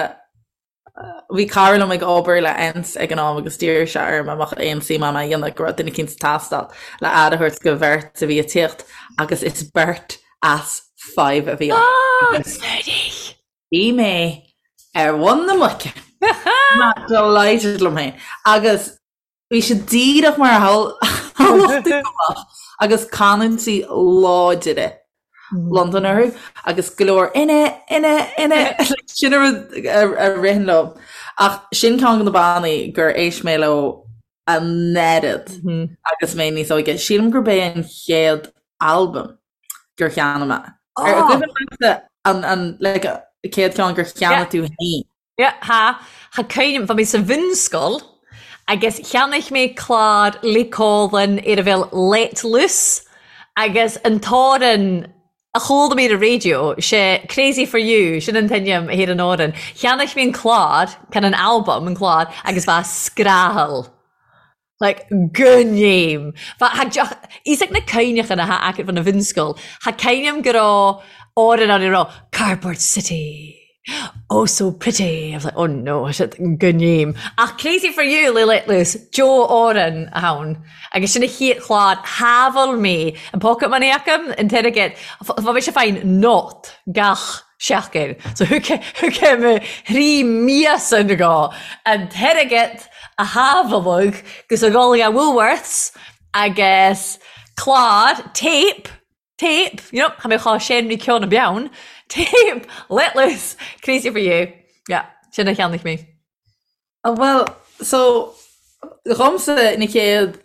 bhí cara liom ag obair le ENTS ag an am agus d'iarr sé orm an mbeadh aon suim agam é a dhéanamh, go raibh duine eicínt ag teastáil le aire a thabhairt do bheirt a bhí ag tíocht agus is beirt as Five a bhí ann. Ah! Bhí mé ar mhuin na muice. Delighted liom féin. Agus Bhí sé díreach mar a shamhlódh tú go mbeadh agus canúintí láidire Londan orthu agus go leor innit, innit, innit sin an rud a ritheann liom. Ach sin ceann de na bannaí gur éist mé leo an oiread agus mé níos óige. Sílim gurb é an chéad albam gur cheannaigh mé. Ar cuimhin leatsa an an like chéad ceann gur cheannaigh tú féin? Yeah, tha, tha cuimhne, bha mi sa bhunscoil agus cheannaich mé clàr le Còmhlan ar a bheil Let Loose agus an t-òran a chuala mi ar an raidió, 'sé Crazy For You, sin an t-ainm a tha ar an òran. Cheannaich mi an clàr, can an albam, an clàr, agus bha scrathail. Like, go ndéim. Bha, tha deoch, fhios ag na cuimhneachan a tha agat fon a bhunscoil, tha cuimhne a'm go raibh òran ann a raibh Cardboard City, oh so pretty, I was like, oh no, shit, go ndéim. Ach Crazy for You le Let Loose, Joe òran a tha ann. Agus sin a chéad chlár, shábháil mé an pocket money agam, an t-airgead, bha mise fàghain not gach seachtain. So thug thug mé thrí míosa go an t-airgead a shábháladh gus a dhul ag Woolworths agus clár, tape, tape, you know, tha mi cho sean ri ceann a beann, tape, Let Loose, Crazy for You. Yeah, sin a cheannaigh mé. Bhuel, so, dhomsa na chéad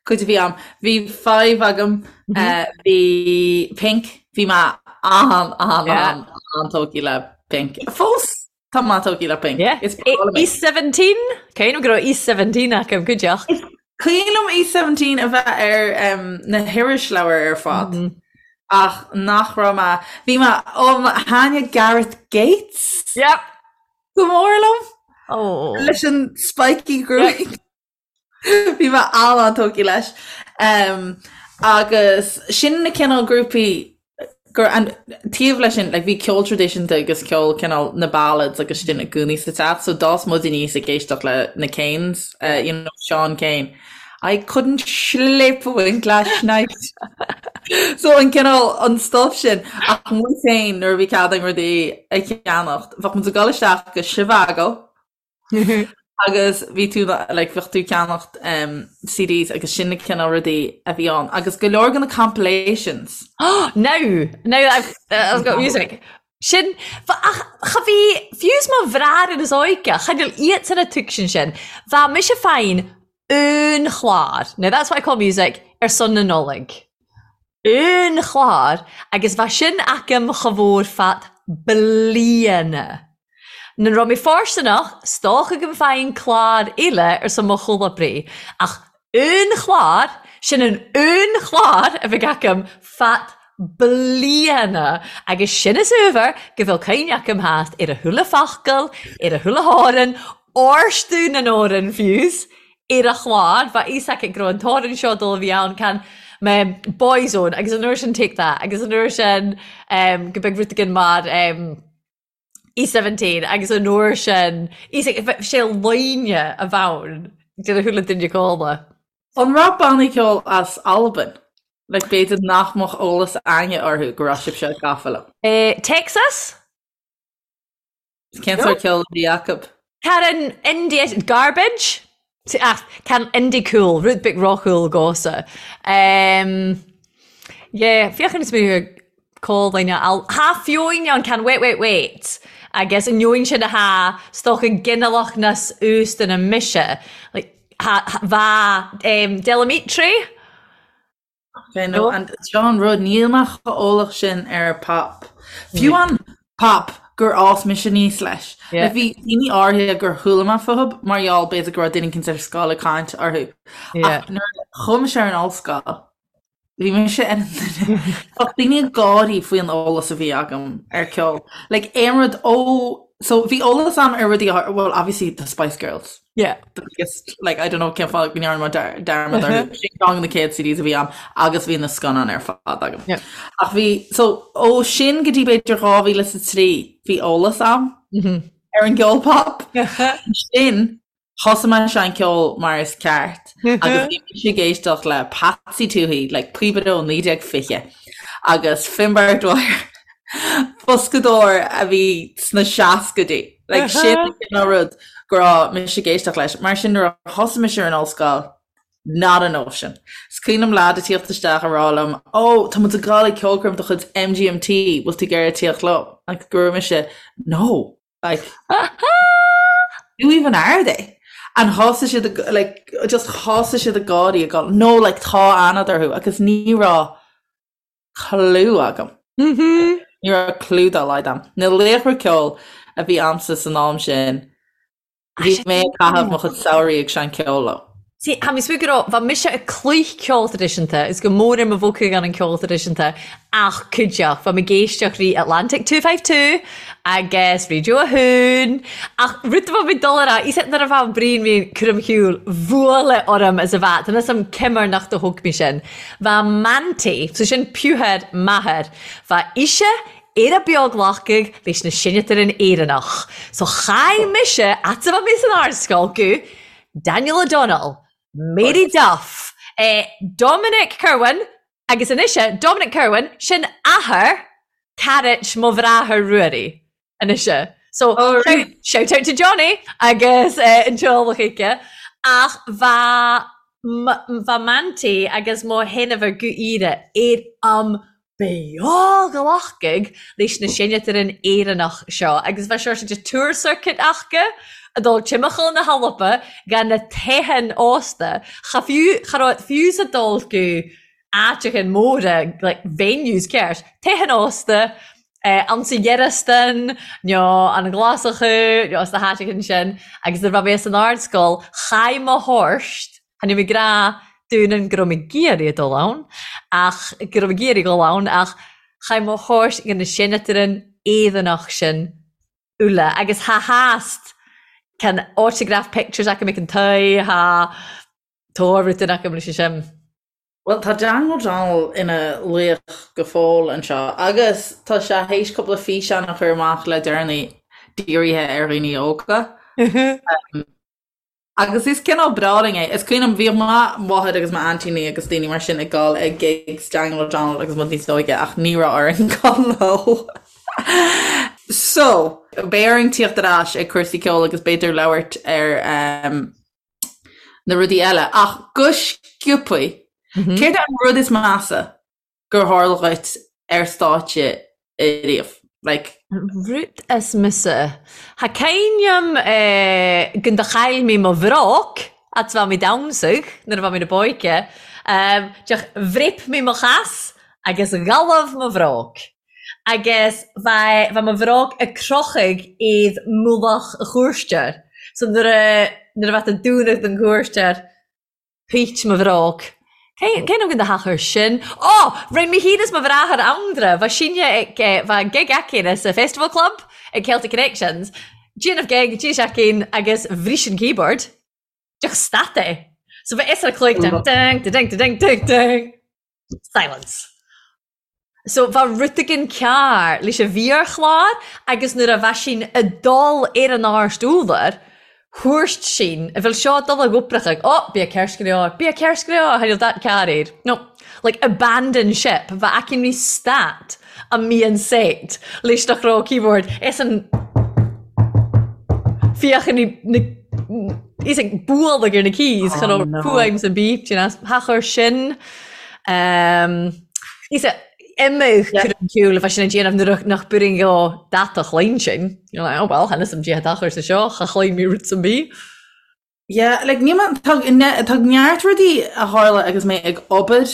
cuid a bhí a'm, bhí Five agam, bhí Pink, bhí mé an, an, an, an-tógtha le Pink. Fós tá mé tógtha le Pink. Yeah. Is breá liom é. East 17? Cuimhním go raibh East 17 agam cuideachta. Is cuimhin liom East 17 a bheith ar na hirisleabhair ar fad ach nach raibh mé, bhí mé, ó, thaitnigh Gareth Gates. Yep. Go mór liom. Oh. Leis an spiky gruaig. Bhí mé an-tógtha leis. Um, agus sin na cineál grúpaí gur an taobh leis sin, like, bhí ceol traidisiúnta agus ceol cineál na ballads agus sin i gcónaí sa teach, so d'fhás muid aníos ag éisteacht le na Kanes, uh, you know, Sean Kane. I couldn't sleep a wink last night. So an cineál an stuff sin ach muid féin nuair a bhí cead againn rudaí a cheannacht, bheadh muid ag dul isteach go Zhivago agus bhí tú like bheadh tú ag ceannacht um, CDs agus sin na cineál rudaí a bhí ann agus go leor de na compilations. Now, now that I've, uh, I've got music. Sin, ach cha bhí, fiú 's mo bhrathair is óige, cha níl iadsan a tuigsin sin. Bha mise fàghain aon chlàr, now that's what I call music, ar son na Nollag. Aon chlár agus bha sin agam cha mhór fad bliana. Nuair raibh mé fóirsteanach, 's dócha go bhfaighinn clár eile ar son mo chomhoibrí, ach aon chlár, sin an aon chlár a bheidh agam fad bliana agus sin is uabhar go bhfuil cuimhne agam theacht ar a chuile focal, ar a chuile th'amhrán, orstu na n-amhrán fiús, ar a chlár, bha fhios aici go raibh an t-amhrán seo dul a bhí ann, can mé Boyzone agus an uair sin Take That agus an uair sin go mbeadh rud éigin mar E17 agus an uair sin sé loine a bhonn de na chuile duine cóla. An raibh bannaí ceoil as Albain? Like b'fhéidir nach mbeadh eolas againne orthu go raibh sibhse gafa leo. Texas? Cén sórt ceoil a bhí acu? Can indie garbage? Ach can indie cool, rud beag róchool dhomhsa. Yeah, féach ar na cólaine al Tha feoin ann can wait wait wait agus an neoin sin atá 's dócha ginealach nas uasta na mise like tha bha Del Amitri? Ok, no, and seo an rud, níl mé chomh eolach sin ar pop. Fiú an pop gur fhás mise aníos leis. Yeah. Like, bhí daoine áirithe gur chuala mé fúthu mar gheall b'fhéidir go raibh duine éicint ar scoil ag caint orthu. Yeah. Ach nuair a chuaigh mise ar an ollscoil, bhí mise ar an duine. Bheadh daoine ag gáirí faoi an eolas a bhí agam ar ceol. Like, aon rud ó... So, bhí eolas agam ar rudaí, well, obviously, the Spice Girls. Yeah. The biggest, like, I don't know cén fáth go ndearna mé dearmad orthu. Sin ceann de na chéad CDs a bhí agam agus bhí na scannáin ar fad agam. Yeah. Ach bhí, so, ó sin go dtí b'fhéidir 2003 bhí eolas agam ar an gceol pop. Sin, thosaigh mé ag seinm ceoil mar is ceart agus bhí mise ag éisteacht le Patsy Touhey, like, píobaire ó 1920 agus Finbar Dwyer, Boscadóir a bhí sna seascaidí. Like, sin an cineál rud go raibh mise ag éisteacht leis. Mar sin nuair a thosaigh mise ar an ollscoil, not a notion. Is cuimhin liom leaid ag tíocht isteach ag rá liom, Ó, tá muid ag gabháil ag ceolchoirm de chuid MGMT, bhfuil tú ag iarraidh tíocht liom? Like, go raibh mise, No. Like, who even are they? And thosaigh siad ag, like, just thosaigh siad ag gáirí ag gabháil, No, like, tá aithne agat orthu. Agus ní raibh cliú agam. Ní raibh cliú dá laghad agam. Na laochra ceoil a bhí a'msa san am sin, bhí mé ag caitheamh mo chuid samhraí ag seinm ceoil leo. See, tha mi smaoineadh gu robh, bha mise ag cluich ceol traidisiúnta, is gu mòr air mo bhogthadh ann an ceol traidisiúnta, ach cuideachd, bha mi ag èisteachd ri Atlantic 252 agus Raidió a hAon, ach rud a bha mi dol a ràdh, is nuair a bha an braon mi cur am shiubhal, bhuaile orm as a bha, tá 'fhios a'm ciamar nach do thóg mi sin. Bha m'auntie, so sin piúthair m'athar, bha ise ar a beòghlacadh leis na sineadairean Éireannach. So chaidh mise, fhad's a bha mi san ardscoil, gu Daniel O'Donnell, Mary Duff, eh, Dominic Kirwan, agus anois eh, Dominic Kirwan, sin athair carait mo bhráthair Ruairí. Anois eh. So, Oh, shout, shout out to Johnny agus eh, an teaghlach aici. Ach bha bha m'auntie agus mo sheanmháthair gu aoire ar am beòghlacadh leis na sineadairean Éireannach seo agus bha seo de tour circuit aca a' dol timcheall na h-Alba dha na teitheann ósta. Cha fiú, cha robh fiú a' dol gu áiteachain móra, like venues ceart, teitheann ósta, ansa Gearasdan, nó an Ghlasacha, nó sna háiteachain sin, agus nuair a bha mé san ardscoil, chaidh mo thorst, chan eil mi ag ràdh dúinn go raibh mé ag iarraidh a dul ann, ach go raibh mé ag iarraidh dhul ann, ach chaidh mo thorst dhan na sineadairean Éireannach sin uile, agus tha theast can autograph pictures aca ag an toigh, tha tòr rudain aca leis sin. Bhuel, tá Daniel O'Donnell ina laoch go fóill anseo agus tá sé théis cúpla físeán a chur amach le deireanaí dírithe ar dhaoine óga. Agus is cineál breá linn é. Is cuimhin liom, bhíodh mo mháthair agus m'aintíní agus daoine mar sin ag dul ag gigs Daniel O'Donnell agus muid níos óige ach ní raibh orainn dul leo. So, beidh orainn tíocht ar ais ag cúrsaí ceoil agus b'fhéidir labhairt ar na rudaí eile. Ach go sciobthaí, céard é an rud is measa gur tharla dhuit ar stáitse ariamh? Like. Rud is measa. Tha cuimhneam gun do chaill mi mo bhróg fhads a bha mi damhsadh nuair a bha mi 'na b'óige. Diolch, bhrip mé mo chas agus ghalbh mo bhróg. Agus bha bha mo bhróg a' crochadh aod mullach a' chúirstear. So nuair a nuair a bha tú dúnadh don chúirstear, Thuit mo bhróg. Cén cén am do thachair sin? Ó! Rinn mé féin is mo bhráthair Andra, bha sinne ag bha gig againn sa Festival Club ag Celtic Connections. Déanamh gig, d'éist againn agus bhris an keyboard. Diolch stad é. So bha fhios ar cloig ding ding ding ding ding ding. Silence. So bha rud éigin cearr leis a' mhírchlár agus nuair a bha sinn a' dul ar an àrst urlair, thuirt sinn, a bheil seo dul ag oipreachadh, oh, bia ceart go leor, bia ceart go leor, tha dat cearr air. No, like abandon ship, bha aicinn ri stat a mbíonn set leis nach raibh keyboard, is an féachann na is ag bualadh ar na keys cha raibh fuaim sa beep, do you know, thachair sin. Um, is imigh cur an ciúil a bheith sin ag déanamh nuair nach b'fhíor go data chloinn sin. You're like, oh well, tha fhios a'm dè tha tachair sa seo, cha chloinn mi rud sam bith. Yeah, like, níl mé, tá, tá neart rudaí a tharla agus mé ag obair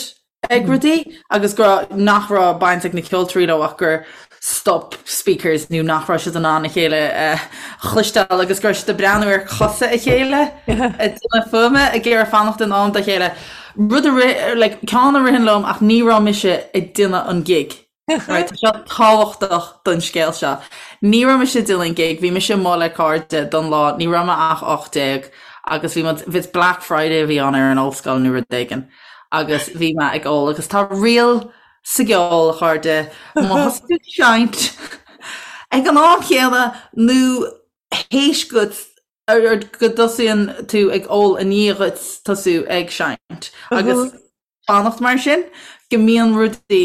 ag rudaí agus go raibh, nach raibh baint ag na ceoltóirí leo ach gur stop speakers nó nach raibh siad in ann a chéile a chloisteáil agus go raibh siad ag breathnú ar chosa a chéile ag déanamh fuaime ag iarraidh fanacht in am dá chéile. Rud a rith, like, ceann a ritheann liom ach ní raibh mise ag déanamh an gig. Right, tá seo tábhachtach don scéal seo. Ní raibh mise ag déanamh an gig, bhí mise amuigh le cairde don lá, ní raibh mé ach 18 agus bhí muid, bhí Black Friday a bhí ann ar an ollscoil nó rud éigin agus bhí mé ag ól agus tá riail sa gceol, a chairde, má thosaigh tú ag seinnt ag an am chéanna nó théis go go dtosaíonn tú ag ól i ndiaidh dhuit tosú ag seinnt agus fanacht mar sin go mbíonn rudaí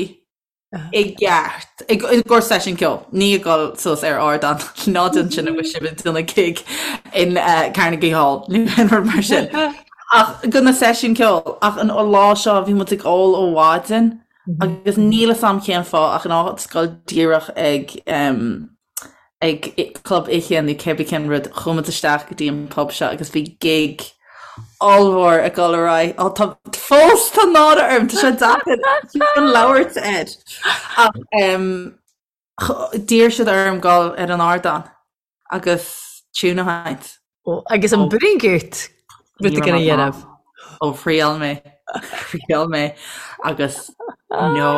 i gceart i gcomhair seisiún ceoil, ní ag dul suas ar ardán ná déan sin agus sibh ag déanamh gig in Carnegie Hall nó aon rud mar sin. Ach do na seisiúin ceoil, ach an lá seo bhí muid ag ól ó mhaidin agus níl fhios a'm cén fáth ach in áit dul díreach ag ag club oíche nó cébí cén rud, chuaigh muid isteach go dtí an pub seo agus bhí gig ollmhór ag dul ar aghaidh. Ó tá fós tá náire orm, tá sé deacair chun labhairt air. Ach d'iarr siad orm dul ar an ardán agus tune a sheinnt. Ó, agus an bring it rud éigin a dhéanamh. Ó thriail mé, thriail mé agus no.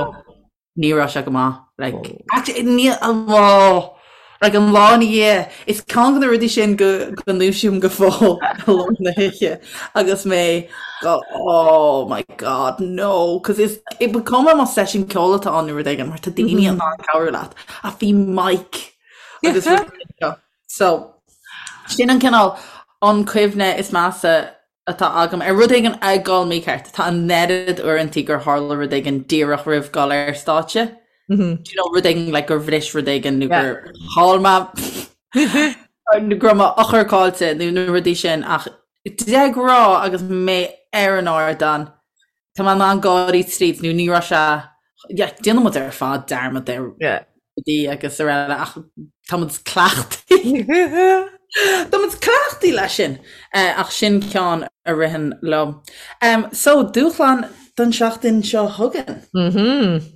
Ní raibh sé go maith. Like, actually, ní, oh, like an lá ina dhiaidh, is ceann de na rudaí sin go, go ndúisím go fóill i lár na hoíche agus mé go, oh my god, no, cos is, ba cuma más seisiún ceoil atá ann nó rud éigin, mar tá daoine in ann cabhrú leat, ach bhí mic agus rudaí seo. So, sin an cineál an cuimhne is measa atá agam ar rud éigin ag dul mícheart. Tá an oiread uaireantaí gur tharla rud éigin díreach roimh dhul ar stáitse. Do you know, rud éigin like gur bhris rud éigin nó gur chaill mé nó go raibh m'eochair caillte nó na rudaí sin ach de ghnáth agus mé ar an ardán Tá mé in ann gáirí tríd nó ní raibh sé, yeah, déanann muid ar fad dearmad ar rudaí agus araile ach tá muid cleachtaithe. Tá muid cleachtaithe leis sin ach sin ceann a ritheann liom. So, dúshlán don seachtain seo chugainn. Mhm.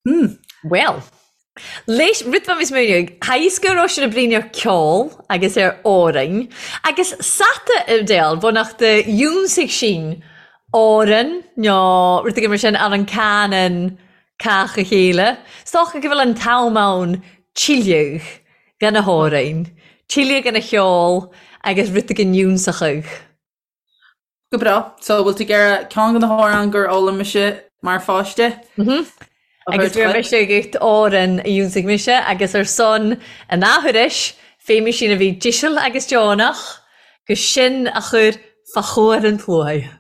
Hmm. Bhuel, leis rud bha mi smaoineadh, tha fhios gu robh sinn a' bruidhinn ar ceol agus ar òrain, agus sata a Edel, bhonnachd a dhiúnsaigh sinn òran no rud éigin mar sin air an cànan càch a chéile. 'S dòcha gu bheil an t-am ann tuilleadh dhan na h-òrain, tuilleadh dhan a cheol agus rud éigin fhiúnsachadh. Go breá. So, bhfuil tú ag iarraidh ceann de na hamhráin gur fhoghlaim mise mar pháiste? Mhm. Agus bhí mise ag òran a dhiúnsaigh mise agus ar son an athuiris, fé sin a bhí deiseal agus deonach, gus sin a chur fa chomhair an tsluaigh.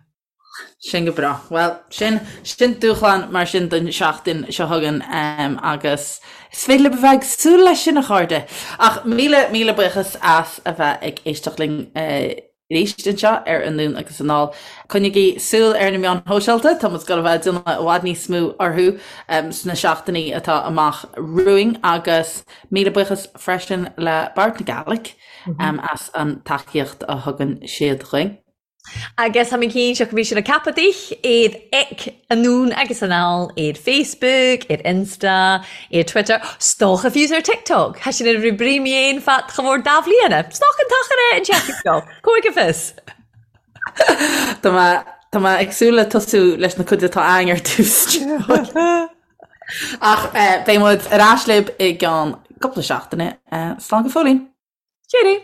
Sin go breá. Bhuel, sin, sin dúshlán mar sin don seachtain seo chugainn agus is féidir libh a bheith ag súil leis sin, a chairde. Ach míle, míle buíochas as a bheith ag éisteacht linn. arís anseo ar Anonn agus Anall. Coinnigí súil ar na meáin shóisialta, tá muid ag dul a bheith ag déanamh i bhfad níos mó orthu sna seachtainí atá amach romhainn agus míle buíochas freisin le Bord na Gàidhlig as an tacaíocht a thugann siad dhuinn. Agus tha mi cinnteach go bith sinn a' ceapadh dich iad ag anonn agus anall ar Facebook, ar Insta, ar Twitter, 's dòcha fiù 's ar TikTok. Tha sin a' brí mi fhèin fad cha mhòr dà bhliadhna. 'S dòcha an t-achar e an tseachtain seo. Còig a fios. Tá mé tá mé ag súil le tosú leis na cuid atá againn ar dtús. Ach beidh muid ar ais libh i gceann cúpla seachtaine. Slán go fóillín. Cheerio!